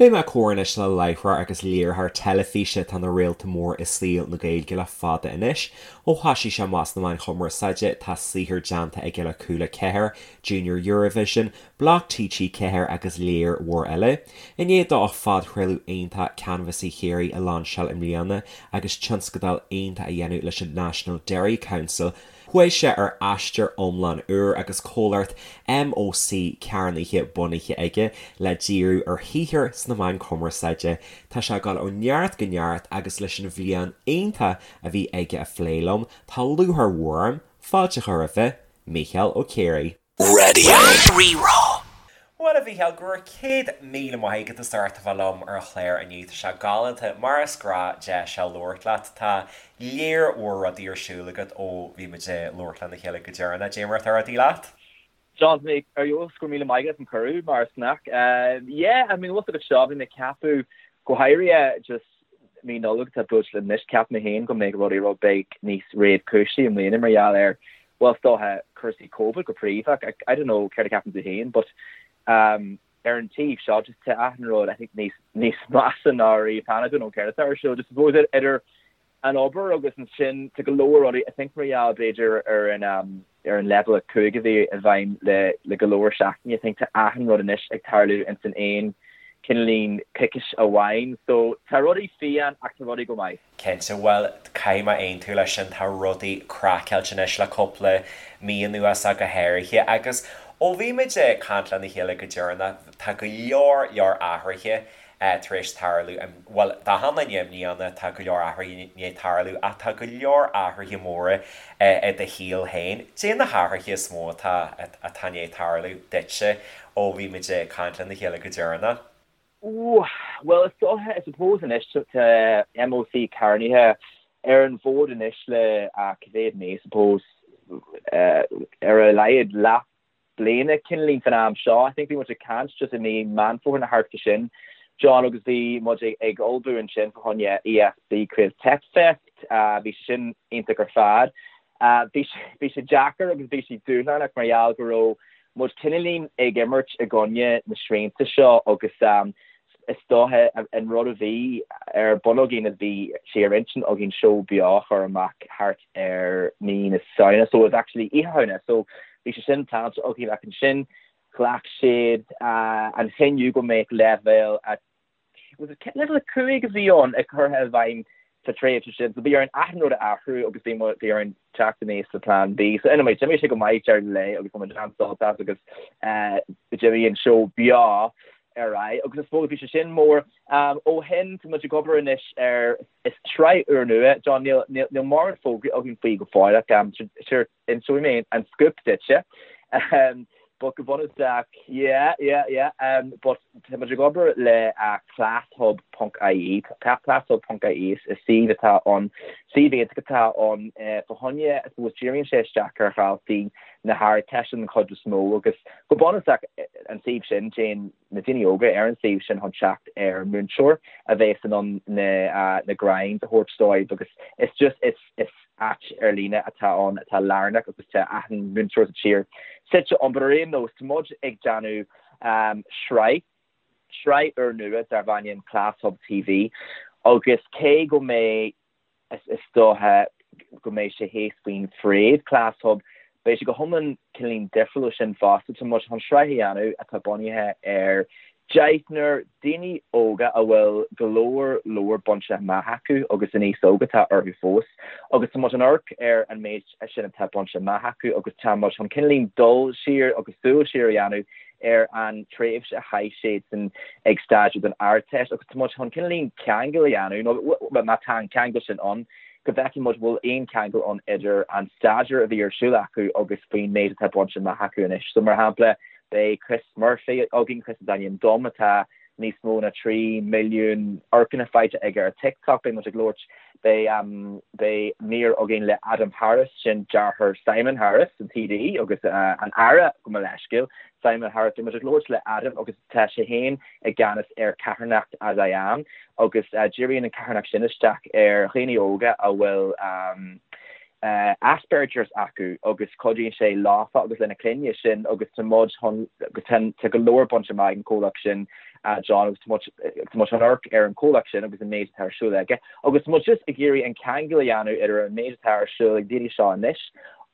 Beidh mé ag comhrá anois le láithreoir agus léiritheoir teilifíse atá ina réalta mór i saol na Gaeilge le fada anois. Ó thoisigh sé amach sna meáin chumarsáide, tá saothar déanta aige le Cúla 4, Junior Eurovision, Bloc TG4 agus léar mhór eile. I ndiaidh dó a phodchraoladh iontach Canbhasaí Chiarraí a lainseáil i mbliana agus tionscadal iontach a dhéanamh leis an National Dairy Council, Chuaigh sé ar aistear iomlán úr agus comhlacht MÓC cearnaithe bunaithe aige le díriú ar shaothar sna meáin cumarsáide. Tá sé ag dul ó neart go neart agus leis an bhliain iontach a bhí aige a phlé liom, tá lúcháir mhór orm fáilte a chur roimhe, Mícheál Ó Ciaraidh. Raidió Rí-Rá. Bhuel, a Mhícheáil, go raibh 100,000 maith agat as ucht a bheith liom ar an chlár inniu. Tá sé galánta, mar is gnách, deis a labhairt leat. Tá léar mhór rudaí ar siúl agat ó bhí muid ag labhairt lena chéile go deireanach. Cad é mar atá rudaí leat? John, tá mé ar fheabhas, go raibh míle maith agat as an cuireadh, mar is gnách. Yeah, I mean, bhfuil fhios agat seo, bhí mé ag ceapadh, go háirithe just mí Nollag atá buailte linn anois, cheap mé féin go mbeadh rudaí rud beag níos réchúisí i mbliana mar gheall ar, bhuel, is dócha cúrsaí Covid go príomha. I don't know céard a cheapann tú féin, but um, ar an taobh seo, just tá achan rud, I think, níos, níos measa ná riamh cheana. I don't know céard atá ar siúl. Just suppose idir an obair agus ansin tá go leor rudaí, I think mar gheall b'fhéidir ar an um, ar an leibhéal 5 a bhí i bhfeidhm le le go leor seachtainí, I think tá achan rud anois ag tarlú ins an aon cineáilín coicís amháin. So tá rudaí fiáin ach tá rudaí go maith. Cinnte, bhuel, caithfidh mé aontú leis sin, tá rudaí craiceáilte anois le cúpla mí anuas ach go háirithe agus ó bhí muid ag caint lena chéile go deireanach, tá go leor leor athruithe tar éis tarlú, bhuel, d'achan duine i mbliana tá go leor athruithe i ndiaidh tarlú ach tá go leor athruithe móra i do shaol féin. Cad é na hathruithe is mó atá atá i ndiaidh tarlú duitse ó bhí muid ag caint lena chéile go deireanach? Ooh, bhuel, is dócha, I suppose anois tá MÓC Carnaithe ar an bhfód anois le cá mhéad mí, I suppose, ar a laghad leath bliana cineáilín fan am seo. I think bhí muid ag caint just i mí Meán Fómhair nó thart fá sin, John, agus bhí muid ag ullmhú ansin fá choinne ESB Creative Tech Fest. Bhí sé sin iontach ar fad. Bhí bhí sé deacair agus bhí sé dúshlánach mar gheall go raibh muid cineáilín ag imirt i gcoinne na srianta seo agus is dócha an rud a bhí ar bun againn is bhí sé ar intinn againn seó beo a chur amach thart ar mí na Samhna so it was actually Oíche Shamhna so bhí sé sin pleanáilte againn ach ansin ghlac siad an cinneadh go mbeadh leibhéal a was it leibhéal 5 a bhí ann ag curtha i bhfeidhm sa tréimhse sin so bhí orainn achan rud a athrú agus bhí bhí orainn teacht aníos le plean B. So anyway, d'imigh sé go maith deireadh an lae agus tá muid an-sásta as agus d'imigh an seó beo ar aghaidh agus I suppose bhí sé sin mór. Ó shin tá muid ag obair anois ar is sraith úrnua, John, níl níl níl mórán fógraí againn faoi go fóill ach sure inseoidh mé an scoop duitse. But go bunúsach, yeah, yeah, yeah, but tá muid ag obair le classhub ponc ie, classhub ponc ie is suíomh atá ann, suíomh iontach atá ann fá choinne, I suppose, díríonn sé isteach ar dhaltaí na hArdteiste den chuid is mó agus go bunúsach an suíomh sin, téann na daoine óga ar an suíomh sin chun teacht ar mhúinteoir a bheas in ann na na grinds a thabhairt dóibh agus is just, is, is áit ar líne atá ann atá lárnach agus tá achan múinteoir sa tír suite ann. But ar aon nós, tá muid ag déanamh sraith, sraith úrnua darb ainm Class Hub TV agus cé go mbeidh, is dócha go mbeidh sé thíos faoin bhfréamh Class Hub, beidh sé go hiomlán cineáilín difriúil ó sin fosta. Tá muid chun sraith a dhéanamh atá bunaithe ar Deichniúr daoine óga a bhfuil go leor leor bainte amach acu agus an aos óg atá orthu fós agus tá muid ag amharc ar an méid sin atá bainte amach acu agus tá muid chun cineáilín dul siar agus súil siar a dhéanamh ar an tréimhse a chaith siadsan ag staidéar don Ardteist agus tá muid chun cineáilín ceangal a dhéanamh nó má tá an ceangal sin ann go bhfeicfidh muid bhfuil aon cheangal ann idir an staidéar a bhí ar siúl acu agus faoin méid atá bainte amach acu anois. So mar shampla Beidh Chris Murphy againn, Chris is ainm dom, atá níos mó ná 3 milliún amharcanna faighte aige ar TikTok. Beidh muid ag labhairt, beidh, beidh mír againn le Adam Harris, sin deartháir Simon Harris, an TD agus an Aire, gabh mo leithscéal, Simon Harris. Beidh muid ag labhairt le Adam agus tá sé féin i gceannas ar carthanacht As I Am agus díríonn an carthanacht sin isteach ar dhaoine óga a bhfuil Asperger's acu agus cuidíonn sé leofa agus lena clainne sin agus tá muid chun agus tá go leor bainte amach ag an comhlacht sin. John, agus tá muid, tá muid chun amharc ar an chomhlacht sin agus an méid atá ar siúl aige agus tá muid just ag iarraidh an ceangal a dhéanamh idir an méid atá ar siúl ag daoine seo anois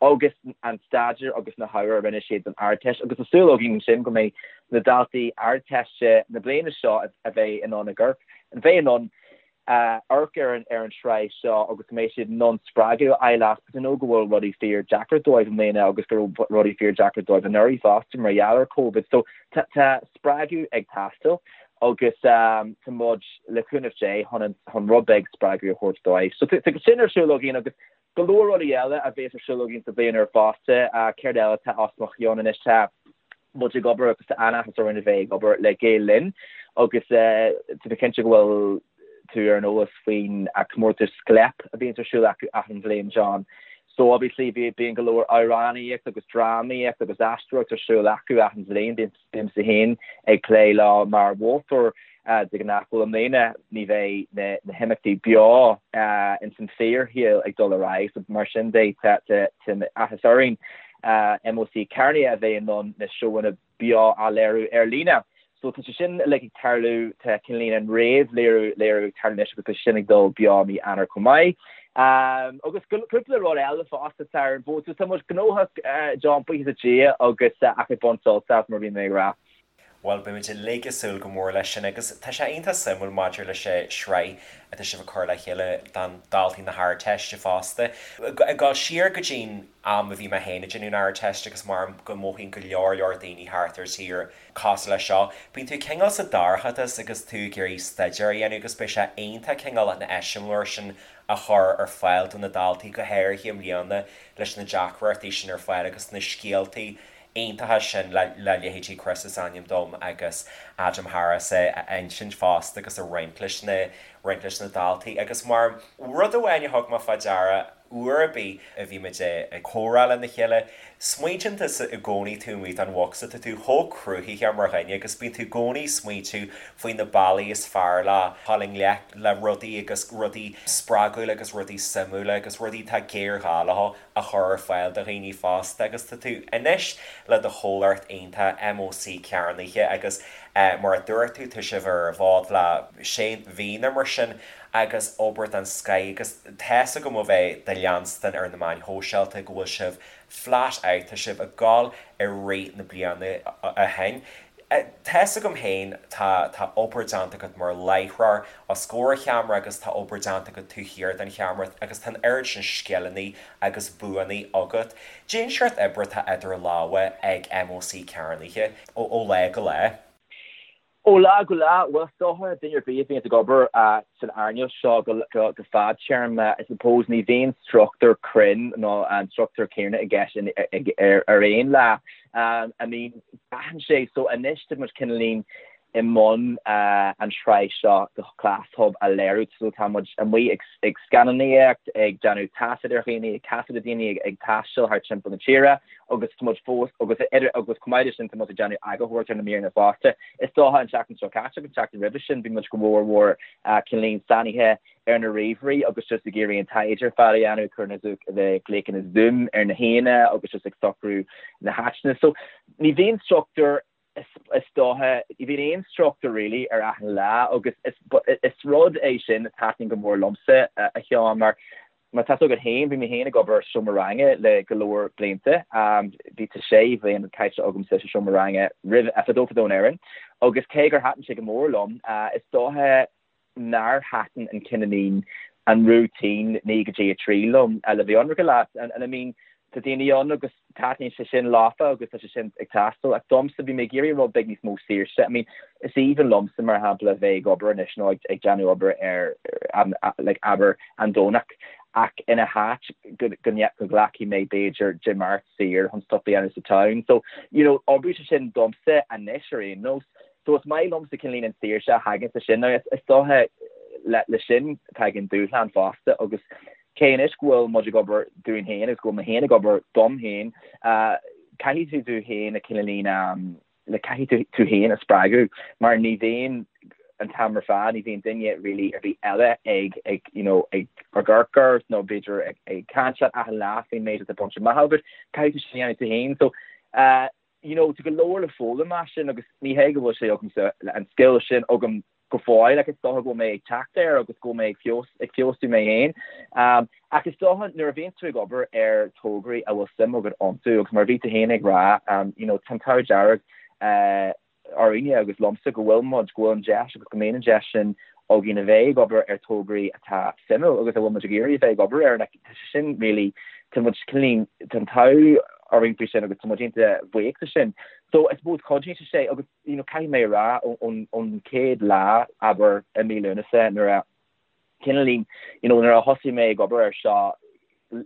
agus an staidéar agus na hábhair a rinne siad don Ardteist agus tá súil againn ansin go mbeidh na daltaí Ardteiste na bliana seo a bheidh in ann a gcur, a bheidh in ann amharc ar an ar an tsraith seo agus go mbeidh siad in ann spreagadh a fháil as because I know go bhfuil rudaí fíor deacair dóibh i mbliana agus go raibh rudaí fíor deacair dóibh anuraidh fosta mar gheall ar Covid. So tá tá spreagadh ag teastáil agus tá muid le cúnamh Dé chun an chun rud beag spreagadh a thabhairt dóibh. So tá tá sin ar siúl againn agus go leor rudaí eile a bhéas ar siúl againn sa bhliain úr fosta. Céard eile atá os mo chionn anois? Tá muid ag obair agus tá an-áthas orainn a bheith ag obair le Gael Linn agus tá mé cinnte go bhfuil tú ar an eolas faoin comórtas Scléip a bhíonns ar siúl acu achan bhliain, John. So obviously bíonn go leor amhránaíocht agus drámaíocht agus aisteoireacht ar siúl acu achan bhliain. Bímse féin ag plé leo mar mholtóir de ghnáth. Bhuel, i mbliana ní bheidh na himeachtaí beo ins an fíorshaol ag dul ar aghaidh, so mar sin de tá áthas orainn MÓC Cearnaithe a bheith in ann na seóanna beo a léiriú ar líne. So tá sé sin uilig ag tarlú, tá cineáilín an réamh-léiriú léiriú ag tarlú anois agus tá sé sin ag dul beo mí Eanáir chomh maith. Agus cúpla rud eile fosta atá ar an bhfód. So tá muid gnóthach, John, buíochas le Dia, agus ach ag baint sult as, mar a bhí mé ag rá. Bhuel, beimid uilig ag súil go mór leis sin agus tá sé iontach suimiúil maidir leis an sraith atá sibh ag cur le chéile don daltaí na hArdteiste fosta. Ag dul siar go dtí'n am a bhí mé féin ag déanamh an Ardteist agus mar go mothaíonn go leor leor daoine thart ar tír cosúil leis seo, bíonn tú cineál sa dorchadas agus tú ag iarraidh staidéar a dhéanamh agus beidh sé iontach cineál an eiseamláir sin a chur ar fáil do na daltaí, go háirithe i mbliana leis na deacrachtaí sin ar fáil agus na scéaltaí iontacha sin le leithéidí Chris is ainm dom agus Adam Harris a insint fosta agus a roinnt leis na roinnt leis na daltaí agus mar rud amháin a thug mé fá deara uair ar bith a bhí muid ag comhrá lena chéile, smaointíonn tusa i gcónaí taobh amuigh den bhocsa, tá tú chomh cruthaitheach mar dhuine agus bíonn tú i gcónaí ag smaointiú faoi na bealaí is fearr le dhul i ngleic le rudaí agus rudaí spreagúla agus rudaí suimiúla agus rudaí atá géarghá leo a chur ar fáil do dhaoine fosta agus tá tú anois le do chomhlacht iontach MÓC Cearnaithe agus mar a dúirt tú tá sibh ar an bhfód le sé mhí nó mar sin agus obair den scoith agus tá's agam ó bheith do leanstan ar na meáin shóisialta go bhfuil sibh flat out, tá sibh ag gabháil i rith na bliana ó shin. Tá's agam féin, tá, tá obair déanta agat mar láithreoir os comhair an cheamara agus tá obair déanta agat taobh thiar den cheamara agus tá an oiread sin scileanna agus buanna agat. Cén seort oibre atá idir lámha ag MÓC Cearnaithe ó lá go lá. Ó lá go lá, bhuel, is dócha, duine ar bith a bhíonns ag obair san earnáil seo go fadtéarma, I suppose, ní bhíonn struchtúr cruinn nó an struchtúr céanna i gceist ar aon lá. I mean, braitheann sé, so anois tá muid cineáilín i mbun an tsraith seo de Class Hub a léiriú, so tá muid amuigh ag scannánaíocht, ag déanamh taifead ar dhaoine, ag taifeadadh daoine ag taisteal thart timpeall na tíre agus tá muid fós, agus agus chomh maith leis sin tá muid ag déanamh eagarthóireacht ar na míreanna fosta. Is dócha an tseachtain seo caite agus an tseachtain roimhe sin bhí muid go mór mhór cineáilín sáinnithe ar na ríomhairí agus just ag iarraidh an taighde ar fad a dhéanamh, ag cur na glaochanna Zoom ar na haíonna agus just ag socrú na háiteanna. So ní bhíonn struchtúr is dócha, ní bhíonn aon struchtúr really ar achan lá agus is, is rud é sin a taitníonn go mór liomsa a Sheáin mar mar tá a fhios agat féin, bhí mé féin ag obair sa seomra ranga le go leor blianta, bhí tá sé bhliain caite agamsa sa seomra ranga roimh, fadó fadó in Éirinn agus cé gur thaitin sé go mór liom, is dócha nár thaitin an cineáilín, an routine 9 go dtí 3 liom, le bheith ionraice leat. And I mean, tá daoine ann agus taitníonn sé sin leofa agus tá sé sin ag teastáil ach domsa bhí mé ag iarraidh rud beag níos mó saoirse. I mean, is aoibhinn liomsa mar shampla a bheith ag obair anois nó ag déanamh obair ar like abair an Domhnach ach ina háit go go nglacfaidh mé b'fhéidir Dé Máirt saor chun stuff a dhéanamh sa town. So, you know, oibríonn sé sin domsa anois ar aon nós. So is maith liomsa cineáilín an saoirse a thagann leis sin. Now is dócha le sin tagann dúshlán fosta agus cé anois go bhfuil muid ag obair dúinn féin agus go bhfuil mé féin ag obair dom féin, caithfidh tú tú féin a cineáilín like caithfidh tú tú féin a spreagadh mar ní bhíonn an t-am ar fad, ní bhíonn duine really ar bith eile ag ag you know ag ag amharc ort nó b'fhéidir ag ag caint leat achan lá faoin méid atá bainte amach agat, caithfidh tú sin a dhéanamh tú féin. So. you know, tá go leor le foghlaim as sin agus ní hé go bhfuil sé agamsa, an scil sin agam go fóill ach is dócha go bhfuil mé ag teacht air agus go bhfuil mé ag feabhas, ag feabhsú mé féin. Ach is dócha nuair a bhíonn tú ag obair ar tograí a bhfuil suim agat iontu agus mar a bhí tú féin ag rá, you know, tá an t-ádh dearg orainne agus liomsa go bhfuil muid, go bhfuil an deis agus go mbíonn an deis sin againn a bheith ag obair ar tograí atá suimiúil agus a bhfuil muid ag iarraidh a bheith ag obair air. Like, tá sé sin really, tá muid cineál, tá an t-ádh orainn faoi sin agus tá muid iontach buíoch de sin. So I suppose cuidíonn sé sé agus, you know, caithfidh mé a rá ón, ón chéad lá, abair, i mí Lúnasa nuair a, cineáilín, you know, nuair a thosaigh mé ag obair air seo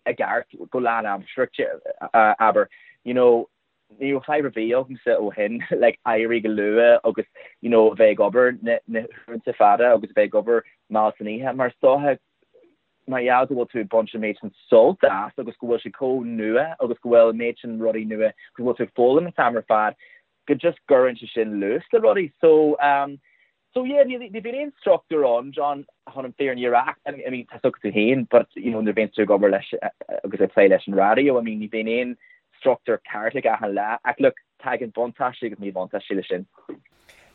i gceart go lánaimseartha, abair, you know, ní raibh fadhb ar bith agamsa ó shin like éirí go luath agus you know a bheith ag obair na na huaireanta fada agus a bheith ag obair mall san oíche mar is dócha mar gheall go bhfuil tú ag baint an méid sin sult as agus go bhfuil sé chomh nua agus go bhfuil an méid sin rudaí nua go bhfuil tú ag foghlaim an t-am ar fad go just gcuireann sé sin luas le rudaí so um So yeah, ní ní bhíonn aon struchtúr ann, John, chun an fírinne a rá. I mean, tá a fhios agat tú féin, but you know, nuair a bhíonn tú ag obair leis agus ag plé leis an raidió, I mean, ní bhíonn aon struchtúr ceart ag achan lá. Ach look, tagann buntáistí agus míbhuntáistí leis sin.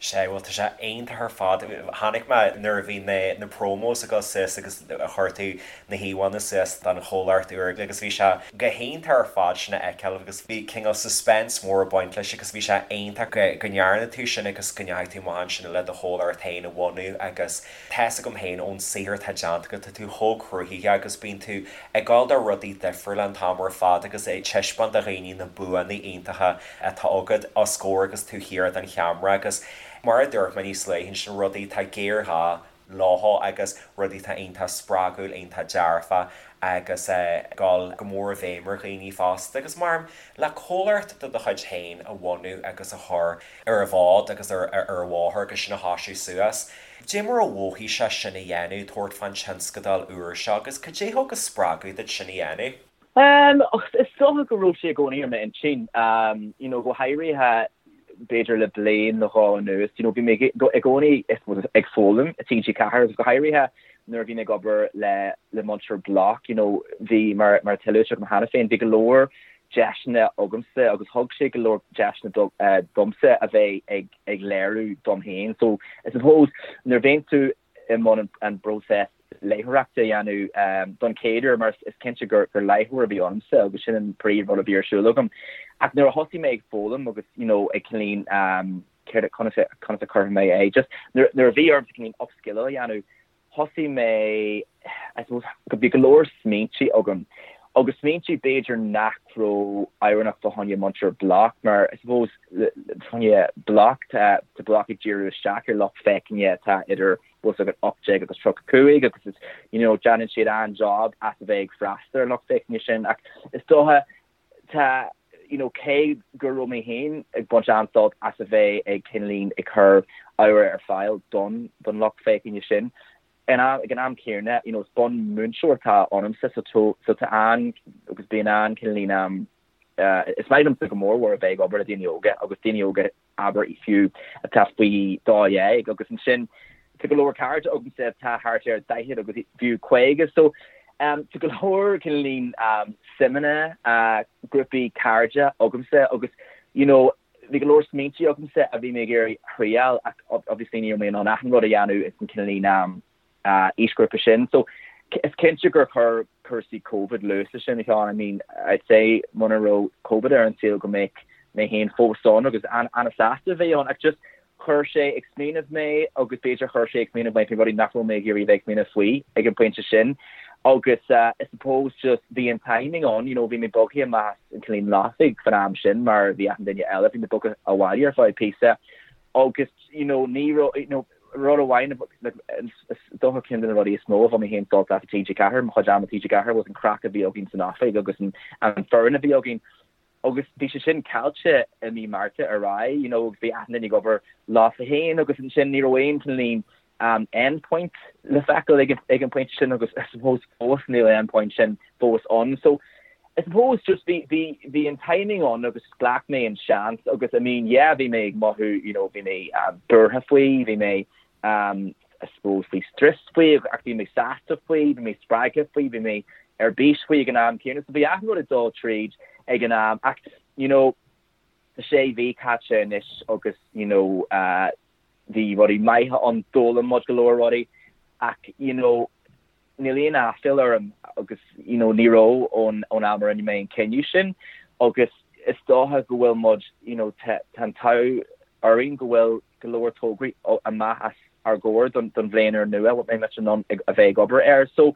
Sea, bhuel, tá sé iontach ar fad. Chonaic mé nuair a bhí na na promos ag dul suas agus a chuir tú na híomhánna suas don chomhlacht úr agus bhí sé go hiontach ar fad sin a fheiceáil agus bhí cineál suspense mór ag baint leis agus bhí sé iontach go go ndearna tú sin agus go ndeachaigh tú amach ansin le do chomhlacht féin a bhunú agus tá's agam féin ón saothar atá déanta agat tá tú chomh cruthaitheach agus bíonn tú ag gabháil do rudaí difriúla an t-am ar fad agus ag taispeáint do dhaoine na buanna iontacha atá agat os comhair agus taobh thiar den cheamara agus mar a dúirt mé níos luaithe ansin rudaí atá géarghá leo agus rudaí atá iontach spreagúil, iontach dearfach agus ag dul go mór i bhfeidhm ar dhaoine fosta. Agus mar le comhlacht de do chuid féin a bhunú agus a chur ar an bhfód agus ar an bhóthar agus sin a thoisiú suas, cad é mar a mhothaigh sé sin a dhéanamh, tabhairt fán tionscadal úr seo agus cad é thug an spreagadh duit sin a dhéanamh? Is dócha go raibh sé i gcónaí ar m'intinn, you know, go háirithe b'fhéidir le bliain nó dhó anuas, you know, bhí mé i gcónaí I suppose ag foghlaim i TG4 agus go háirithe nuair a bhí mé ag obair le le Múinteoir Bloc, you know, bhí mar mar atá luaite agam cheana féin, bhí go leor deiseanna agamsa agus thug sé go leor deiseanna domsa a bheith ag ag léiriú dom féin. So I suppose nuair a bhíonn tú i mbun an bpróiseas léitheoireachta a dhéanamh don chéad uair mar is cinnte gur léitheoir a bhí ionamsa agus sin an príomh rud a bhí ar siúl agam. Ach nuair a thosaigh mé ag foghlaim agus you know ag cineáilín céard conas conas a chuirfidh mé é just nuair a bhí ormsa cineáilín upskill a dhéanamh thosaigh mé I suppose go bhí go leor smaointe agam agus smaointe b'fhéidir nach raibh oiriúnach fá choinne Múinteoir Bloc mar I suppose fá choinne Bloc tá Bloc ag díriú isteach ar lucht féachana atá idir bhfuil a fhios agat 18 agus 35 agus is you know déanann siad an-job as a bheith ag freastal ar an lucht féachana sin ach is dócha tá you know cé go raibh mé féin ag baint an-sult as a bheith ag cineáilín ag cur ábhar ar fáil don don lucht féachana sin in am ag an am céanna you know is bunmhúinteoir atá ionamsa so so tá an agus bíonn an cineáilín um is maith liomsa go mór mhór a bheith ag obair le daoine óga agus daoine óga abair fiú, atá faoi 12 agus ansin tá go leor cairde agamsa atá thart ar 40 agus fiú 50 so tá go leor cineáilín suimeanna, grúpaí cairde agamsa agus you know bhí go leor smaointe agamsa a bhí mé ag iarraidh a thriáil ach obviously ní raibh mé in ann achan rud a dhéanamh ins an cineáilín aoisghrúpa sin. So is cinnte gur chuir cúrsaí Covid luas leis sin, a Sheáin. I mean, I'd say muna raibh Covid ar an saol go mbeadh mé féin fós ann agus an-sásta a bheith ann ach just chuir sé ag smaoineamh mé agus b'fhéidir chuir sé ag smaoineamh mé faoi rudaí nach raibh mé ag iarraidh a bheith ag smaoineamh faoi ag an bpointe sin. Agus I suppose just bhí an timing ann, you know, bhí mé bogtha amach as an Cillín Lofaigh fan am sin mar bhí achan duine eile, bhí mé bogtha abhaile ar feadh píosa agus you know ní raibh, you know, Rud amháin, is dócha ceann de na rudaí is mó a bhain mé féin sult as i TG4, mo chuid ama i TG4, was an craic a bhí againn san oifig agus an foireann a bhí againn. Agus bhí sé sin caillte i mí Márta ar aghaidh, you know, agus bhí achan duine ag obair leofa féin agus ansin ní raibh aon cineáilín end point le feiceáil ag an bpointe sin agus I suppose fós níl an end point sin fós ann. So I suppose just bhí, bhí, bhí an timing ann agus ghlac mé an seans agus I mean yeah bhí mé ag mothú you know bhí mé buartha faoi, bhí mé I suppose faoi strus faoi ach bhí mé sásta faoi, bhí mé spreagtha faoi, bhí mé ar bís faoi ag an am céanna so bhí achan rud ag dul tríd ag an am ach you know. Tá sé mhí caite anois agus you know bhí rudaí maithe ann, d'fhoghlaim muid go leor rudaí ach you know níl aon aiféala orm agus you know ní raibh ón ón am a rinne mé an cinneadh sin agus is dócha go bhfuil muid you know tá an t-ádh orainn go bhfuil go leor tograí amach os ár gcomhair don don bhliain úr nua a mbeidh muid in ann a bheith ag obair air. So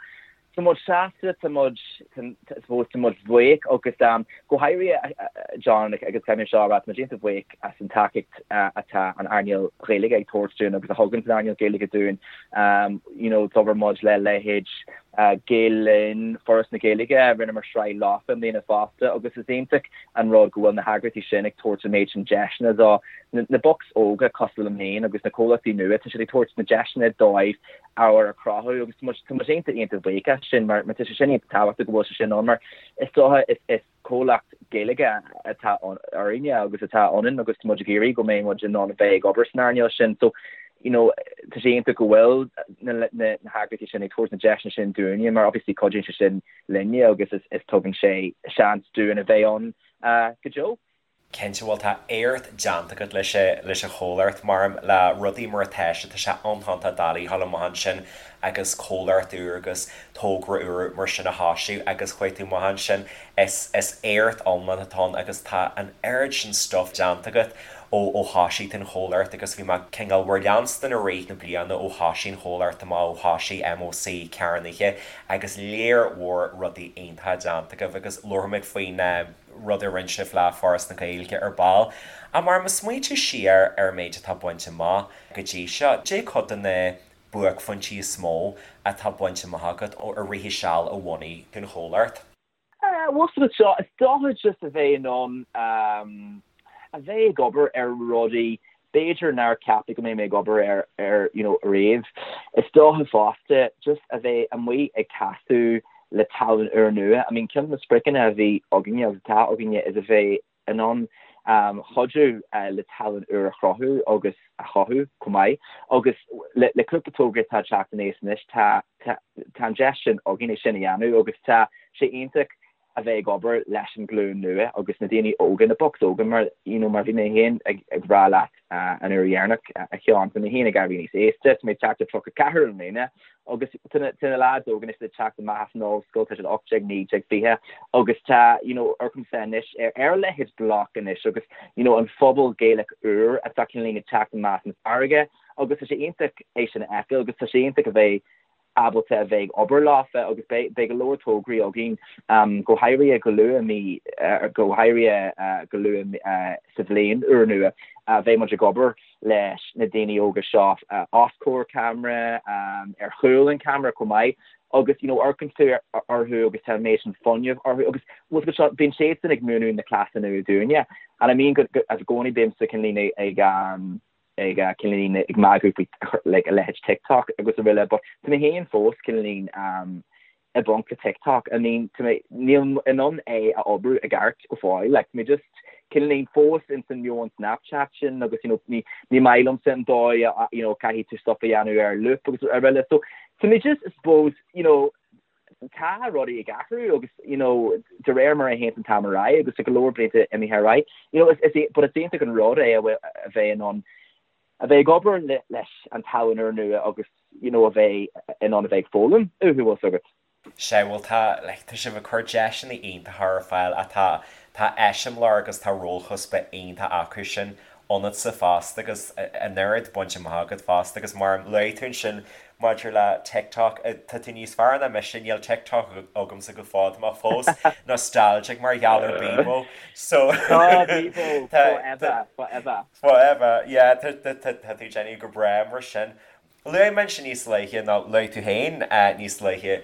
Tá muid sásta, tá muid, I suppose, tá muid buíoch agus go háirithe John agus caithfidh mé seo a rá, tá muid iontach buíoch as an tacaíocht atá an earnáil Ghaeilge ag tabhairt dúinn agus a thugann an earnáil Ghaeilge dúinn. You know, d'obair muid le leithéid Gael Linn, Foras na Gaeilge, rinneamar sraith leofa i mbliana fosta agus is iontach an rud go bhfuil na heagraíochtaí sin ag tabhairt an méid sin deiseanna do na bocs óga cosúil liom féin agus na comhlachtaí nua, tá siad ag tabhairt na deiseanna dóibh ábhar a chruthú agus tá muid tá muid iontach iontach buíoch as sin mar mar tá sé sin iontach tábhachtach go bhfuil sé sin ann mar is dócha is is comhlacht Gaeilge atá orainne agus atá ionainn agus tá muid ag iarraidh go mbeidh muid in ann a bheith ag obair san earnáil sin so you know tá sé iontach go bhfuil na na na heagraíochtaí sin ag tabhairt na deiseanna sin dúinne mar obviously cuidíonn sé sin linne agus is is tugann sé seans dúinn a bheith ann go deo. Cinnte, bhuel tá éacht déanta agat leis leis an chomhlacht, maram le rudaí mar atá sé, tá sé iontach doiligh a ghabháil amach ansin agus comhlacht úr agus togra úr mar sin a thoisiú agus chuaigh tú amach ansin, is is éacht iomlán atá ann agus tá an oiread sin stuff déanta agat ó ó thoisigh tú an chomhlacht agus bhí mé cineál bhur leanstan i rith na bliana ó thoisigh an chomhlacht amach ó thoisigh MÓC cearnaithe agus léar mhór rudaí iontacha déanta agaibh agus labharfaimid faoin rud a rinne sibh le Foras na Gaeilge ar ball. Ach mar ag smaointiú siar ar an méid atá bainte amach go dtí seo, cad é cuid de na buaicphointí is mó atá bainte amach agat ó i rith an seal a bhunaigh tú an chomhlacht? Bhuel seo, is dócha just a bheith in ann a bheith ag obair ar rudaí b'fhéidir nár ceapadh go mbeidh mé ag obair air ar you know riamh. Is dócha fosta just a bheith amuigh ag casadh le tallann úrnua. I mean ceann de na spriocanna a bhí againne agus atá againne is a bheith in ann cuidiú le tallann úr a chruthú agus a chothú chomh maith. Agus le le cúpla togra atá ag teacht aníos anois tá tá tá an deis sin againn é sin a dhéanamh agus tá sé iontach a bheith ag obair leis an ghlúin nua agus na daoine óga, na bocs óga mar you know mar bhí mé féin ag ag rá leat an uair dheireanach a Sheáin, tá mé féin ag éirí níos aosta, tá mé ag teacht ar 34 i mbliana agus tá na tá na lads óga anois ag teacht amach as an ollscoil, tá siad 18, 19, 20 agus tá you know amharcaimse anois ar ar a leithéid Bloc anois agus you know an phobal Gaelach úr atá cineál ag teacht amach as an bhfarraige agus tá sé iontach é sin a fheiceáil agus tá sé iontach a bheith ábalta a bheith ag obair leofa agus beidh go leor tograí againn, go háirithe go luath mí, go háirithe go luath sa bhliain úrnua, beidh muid ag obair leis na daoine óga seo os comhair ceamara, ar chúl an cheamara chomh maith agus you know amharcann tú orthu agus tá an méid sin fuinnimh orthu agus bhfuil seo, bíonn siadsan ag múineadh na cleasa nua dúinne and I mean go, i gcónaí bímse cineál ag ag cineál ag magadh faoi like a leithéid TikTok agus araile but tá mé féin fós cineál i bponc le TikTok I mean tá mé níl in ann é a oibriú i gceart go fóill like tá mé just cineál fós ins an meon Snapchat sin agus you know ní ní maith liomsa an dóigh a you know caithfidh tú stuff a dhéanamh ar loop agus araile so tá mé just I suppose you know tá rudaí ag athrú agus you know de réir mar a théann an t-am ar aghaidh agus tá go leor blianta imithe ar aghaidh you know is is but is iontach an rud é a bheith in ann a bheith ag obair leis an tallann úrnua agus you know a bheith in ann a bheith ag foghlaim uathu bhfuil 's agat. Sea, bhuel tá, like, tá sibh ag cur deiseanna iontacha ar fáil ach tá, tá eiseamláir agus tá rólchuspa iontach acu sin ionatsa fosta agus an oiread bainte amach agat fosta agus mar a luaigh tú ansin maidir le TikTok, tá tú níos fearr ná mise, níl TikTok agamsa go fóill, tá mé fós nostalgic mar gheall ar Bebo so Oh Bebo, forever, forever. Forever, yeah, tá tú déanamh go breá mar sin. Luaigh mé ansin níos luaithe, nó luaigh tú féin níos luaithe,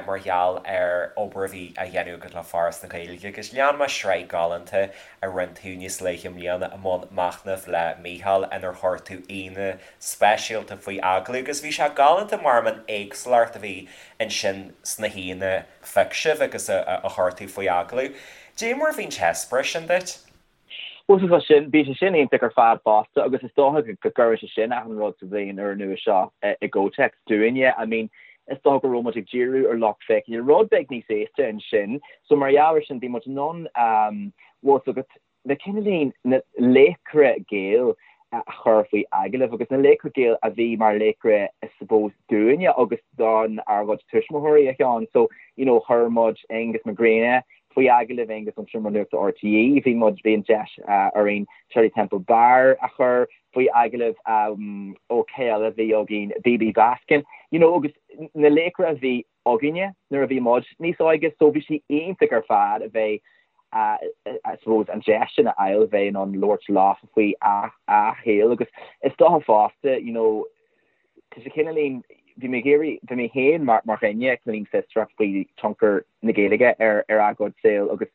mar gheall ar obair a bhí á dhéanamh agat le Foras na Gaeilge agus lean mé sraith galánta a rinne tú níos luaithe i mbliana i mbun machnaimh le Mícheál inar chuir tú aíonna speisialta faoi agallamh agus bhí sé galánta mar an éagsúlacht a bhí ansin sna haíonna a phioc sibh agus a chuir tú faoi agallamh. Dé mar a bhí an t-eispéireas sin duit? Bhuel tá sin, bhí sé sin iontach ar fad fosta agus is dócha go gcuireann sé sin achan rud sa bhliain úrnua seo i gcomhthéacs dúinne. I mean, is dócha go raibh muid ag díriú ar lucht féachana rud beag níos aosta ansin so mar gheall ar sin bhí muid in ann, bhfuil 's agat. na cineáilín na laochra Gael a chur faoi agallamh agus na laochra Gael a bhí mar laochra I suppose dúinne agus don ár gcuid tuismitheoirí a Sheáin. So you know chuir muid Aonghus Mac Grianna faoi agallamh, Aonghus ón Seomra Nuachta RTÉ, bhí muid, bhí an deis orainn Shirley Temple Barr a chur faoi agallamh, ó cé eile a bhí againn, Bibi Baskin, you know agus na laochra a bhí againne nuair a bhí muid níos óige so bhí sé iontach ar fad a bheith I suppose an deis sin a fháil a bheith in ann labhairt leofa faoi a saol agus is dócha fosta you know tá sé cineáilín bhí mé ag iarraidh bhí mé féin mar mar dhuine cineáilín fiosrach faoi tionchar na Gaeilge ar ar a gcuid saol agus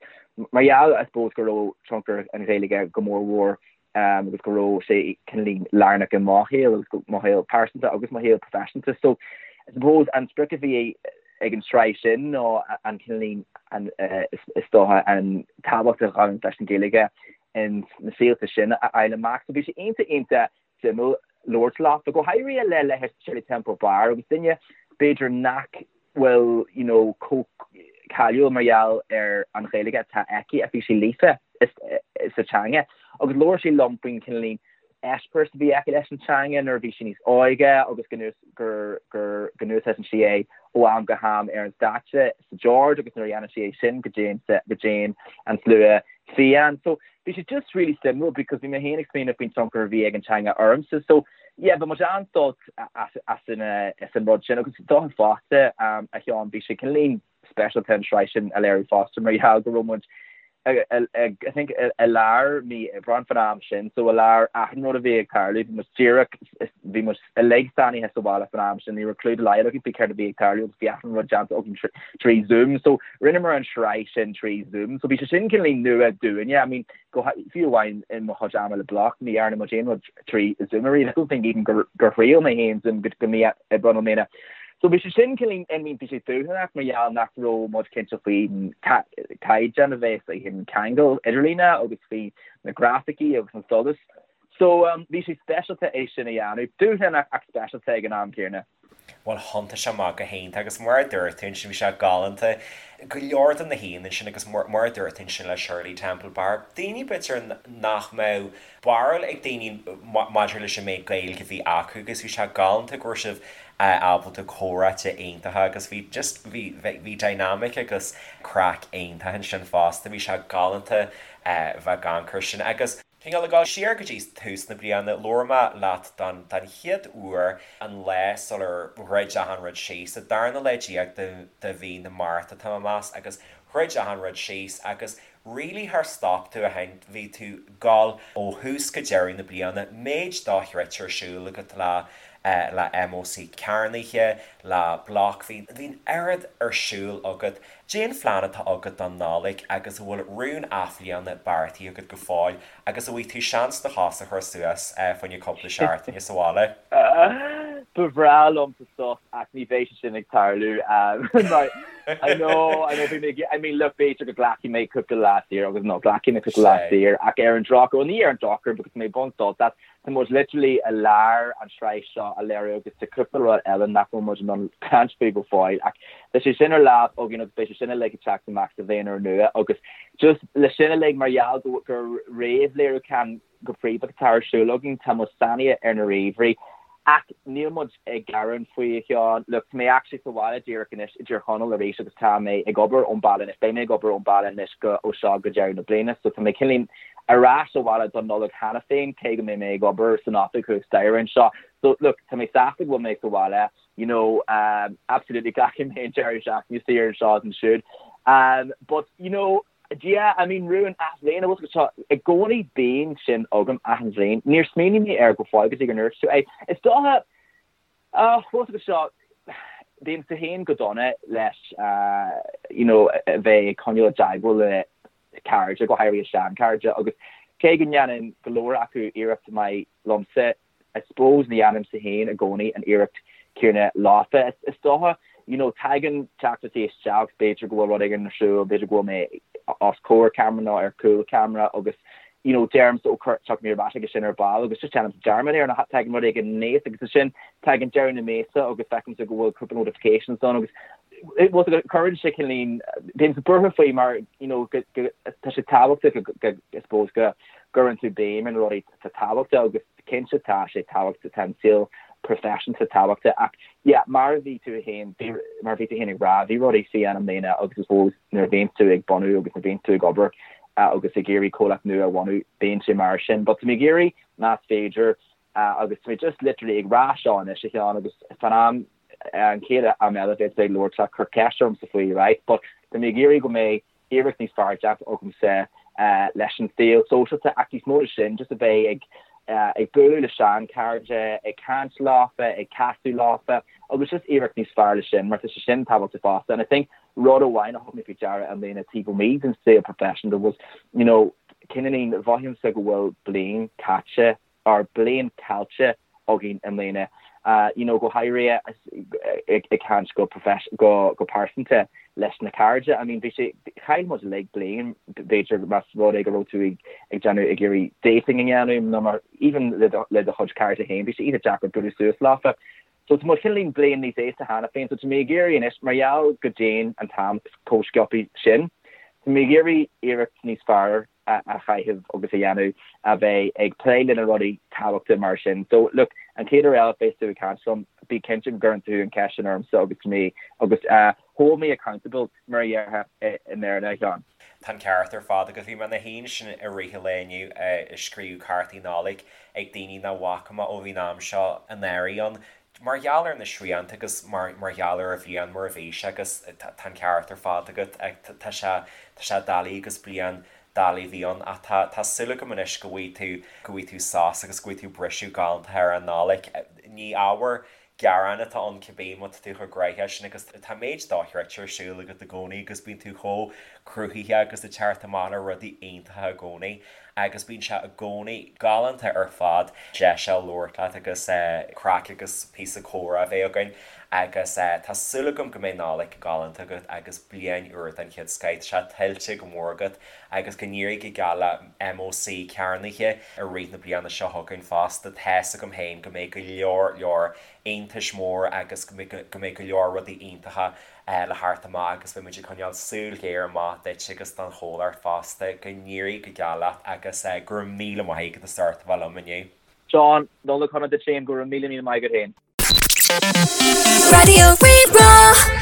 mar gheall I suppose go raibh tionchar an Ghaeilge go mór mhór agus go raibh sé cineáilín lárnach i mo shaol agus mo shaol pearsanta agus mo shaol proifisiúnta. So I suppose an sprioc a bhí ag an tsraith sin ná an cineáilín an is dócha an tábhacht a ghabhann leis an Ghaeilge in na saolta sin a fháil amach. So bhí sé iontach iontach suimiúil labhairt leofa, go háirithe le leithéid Shirley Temple Barr agus duine b'fhéidir nach bhfuil you know chomh cáiliúil mar gheall ar an Ghaeilge atá aici ach bhí sí líofa sa teanga agus labhair sí liom faoin cineáilín eispéireas a bhí aici leis an teanga nuair a bhí sí níos óige agus go gur gur go n-úsáideann sí é ó am go ham ar an stáitse sa George agus nuair a dhéanann sí é sin go dtéann go dtéann an slua fiáin. So bhí sé just really suimiúil because bhí mé féin ag smaoineamh faoin tionchar a bhí ag an teanga ormsa. So yeah, bhí muid an-sult as as an as an rud sin agus dócha fosta a Sheáin bhí sé cineáilín speisialta an tsraith sin a léiriú fosta mar gheall go raibh muid I think i lár mí Aibreáin fan am sin so i lár achan rud a bhí ag tarlú bhí muid díreach bhí muid uilig sáinnithe sa bhaile fan am sin ní raibh clue dá laghad againn faoi céard a bhí ag tarlú agus bhí achan rud déanta againn trí Zoom so rinneamar an tsraith sin trí Zoom so bhí sé sin cineáilín nua dúinne I mean go fiú amháin i mo chuid ama le Bloc ní dhearna muid aon rud trí Zoom ariamh I don't think even gur gur thriail mé féin Zoom go go mí Aibreáin i mbliana. So bhí sé sin cineáilín I mean bhí sé dúshlánach mar gheall nach raibh muid cinnte faoin caighdeán a bheas ag an ceangal idirlíne agus faoi na grafaicí agus an solas. So bhí sé speisialta é sin a dhéanamh. Dúshlánach ach speisialta ag an am céanna. Bhuel thiontaigh sé amach go hiontach agus mar a dúirt tú ansin bhí sé galánta go leor de na haíonna ansin agus mar a dúirt tú ansin le Shirley Temple Bar, daoine b'fhéidir nach mbeadh barúil ag daoine maidir leis an méid Gaeilge a bhí acu agus bhí sé galánta go raibh sibh ábalta comhráite iontacha agus bhí just bhí bhí dynamic agus craic iontach ansin fosta bhí sé galánta bheith ag amharc air sin agus Cineál ag dul siar go dtí tús na bliana, labhair mé leat don don chéad uair an lá sular dhruid achan rud síos, an darna lá déag de de mhí na Márta tá mé ag meas, agus dhruid achan rud síos agus really char stop tú ó shin, bhí tú ag dul ó thús go deireadh na bliana, méid dochreidte ar siúl agat le le MÓC cearnaithe, le Bloc, bhí bhí an oiread ar siúl agat. Cén phlean atá agat don Nollaig agus an bhfuil rún athbhliana beartaithe agat go fóill agus an bhfaighidh tú seans do chos a chur suas fá choinne cúpla seachtaine sa bhaile? Ba bhreá liomsa sos ach ní bheidh sé sin ag tarlú mar I know, I know bhí mé ag, I mean look b'fhéidir go nglacfaidh mé cúpla lá saor agus no glacfaidh mé cúpla lá saor ach ar an drochuair, bhuel ní ar an drochuair because tá mé ag baint sult as Tá muid literally i lár an tsraith seo a léiriú agus tá cúpla rud eile nach bhfuil muid in ann caint faoi go fóill ach tá sé sin ar lámh againn agus beidh sé sin uilig ag teacht amach sa bhliain úrnua agus just le sin uilig mar gheall go gur réamhléiriúchán go príomha atá ar siúl againn tá muid sáinnithe ar na ríomhairí ach níl muid ag gearán faoi a Sheáin. Look, tá mé actually sa bhaile díreach anois i dTír Chonaill arís agus tá mé ag obair ón baile anois, beidh mé ag obair ón baile anois go ó seo go deireadh na bliana so tá mé cineáilín ar ais sa bhaile don Nollaig cheana féin cé go mbeidh mé ag obair san oifig thuas staighre anseo. So look, tá mé sásta go bhfuil mé sa bhaile, you know, um, absolutely glacfaidh mé an deireadh seachtaine saor anseo is ansiúd. Um, but, you know, Yeah, I mean rún athbhliana, bhfuil seo i gcónaí bíonn sin agam achan bhliain. Níor smaoinigh mé air go fóill go dtí gur ndúirt tú é. Is dócha, ah, bhfuil fhios agat seo, bímse féin go dona leis you know a bheith ag coinneáil i dteagmháil le cairde, go háirithe seanchairde, agus cé go ndéanann go leor acu iarracht maith liomsa, I suppose ní dhéanaimse féin i gcónaí an iarracht céanna leofa. Is dócha, you know, tagann teachtaireachtaí isteach, b'fhéidir go bhfuil rud éigin ar siúl, b'fhéidir go bhfuil mé os comhair ceamara nó ar chúl ceamara agus, you know, deirimse ó tiocfaidh mé ar ais chuige sin ar ball agus just déanaimse dearmad air nó tagann rud éigin aníos agus ansin tagann deireadh na míosa agus feicimse go bhfuil cúpla notifications ann agus bhfuil cuireann sé cineáilín, bímse buartha faoi mar, you know, go, go. tá sé tábhachtach go, I suppose, go gcuireann tú béim ar na rudaí atá tábhachtach agus cinnte tá sé tábhachtach, tá an saol proifisiúnta tábhachtach ach yeah, mar a bhí tú féin, mar a bhí tú féin ag rá, bhí rudaí fiáin i mbliana agus I suppose nuair a bhíonn tú ag bunú agus nuair a bhíonn tú ag obair agus ag iarraidh comhlacht nua a bhunú, bíonn sé mar sin. But tá mé ag iarraidh más féidir agus tá mé just literally ag rá seo anois a Sheáin agus fan am an chéad am eile a bheas tú ag labhairt leat cuir ceist ormsa faoi right but tá mé ag iarraidh go mbeidh iarracht níos fearr déanta agamsa leis an saol sóisialta ach níos mó na sin just a bheith ag ag bualadh le seanchairde, ag caint leofa, ag casadh leofa agus just iarracht níos fearr le sin mar tá sé sin tábhachtach fosta and I think rud amháin a thug mé faoi deara i mbliana taobh amuigh den saol professional was you know cineáilín mhothaímse go bhfuil bliain caite or bliain caillte againn i mbliana you know go háirithe ag caint go go go pearsanta leis na cairde I mean bhí sé chaill muid uilig bliain b'fhéidir más rud é go raibh tú ag ag déanamh ag iarraidh dating a dhéanamh nó mar even le do le do chuid cairde féin bhí sé iontach deacair bualadh suas leofa So tá muid cineáilín bliain níos aosta cheana féin, so tá mé ag iarraidh anois, mar gheall go dtéann an t-am chomh sciobtha sin, tá mé ag iarraidh iarracht níos fearr a chaitheamh agus a dhéanamh a bheith ag plé le na rudaí tábhachtacha mar sin. So look, an chéad uair eile a bheas tú ag caint liom, bí cinnte go gcuireann tú an cheist sin ormsa agus tá mé, agus hold me accountable mar a déarfá i mBéarla, a Sheáin. Tá an ceart ar fad agat. Bhí mé ina shuí ansin i rith an lae inniu ag scríobh cártaí Nollag ag daoine nach bhfaca mé ó bhí an am seo anuraidh ann, mar gheall ar na srianta agus mar mar gheall ar an bhliain mar a bhí sé agus tá an ceart ar fad agat. Tá sé tá sé doiligh agus bliain doiligh a bhí ann ach tá tá súil agam anois go bhfaighidh tú go bhfaighidh tú sos agus go bhfaighidh tú briseadh galánta ar an Nollaig. Ní ábhar gearáin atá ann cibé má tá tú chomh gnaitheach sin agus tá méid dochreidte ar siúl agat i gcónaí agus bíonn tú chomh cruthaitheach agus ag teacht amach le rudaí iontacha i gcónaí agus bíonn sé i gcónaí galánta ar fad deis a labhairt leat agus craic agus píosa comhrá a bheith againn agus tá súil agam go mbeidh Nollaig galánta agat agus bliain úr den chéad scoith. Tá sé tuillte go mór agat agus go n-éirí go geal le MÓC cearnaithe i rith na bliana seo chugainn fosta. Tá's agam féin go mbeidh go leor leor iontais mór agus go mbeidh go leor rudaí iontacha le theacht amach agus beidh muid ag coinneáil súil ghéar amach duit agus don chomhlacht fosta. Go n-éirí go geal leat agus go raibh míle maith agat as ucht a bheith liom inniu. Seán, Nollaig shona duit féin, go raibh míle míle maith agat féin. Raidió Rí-Rá.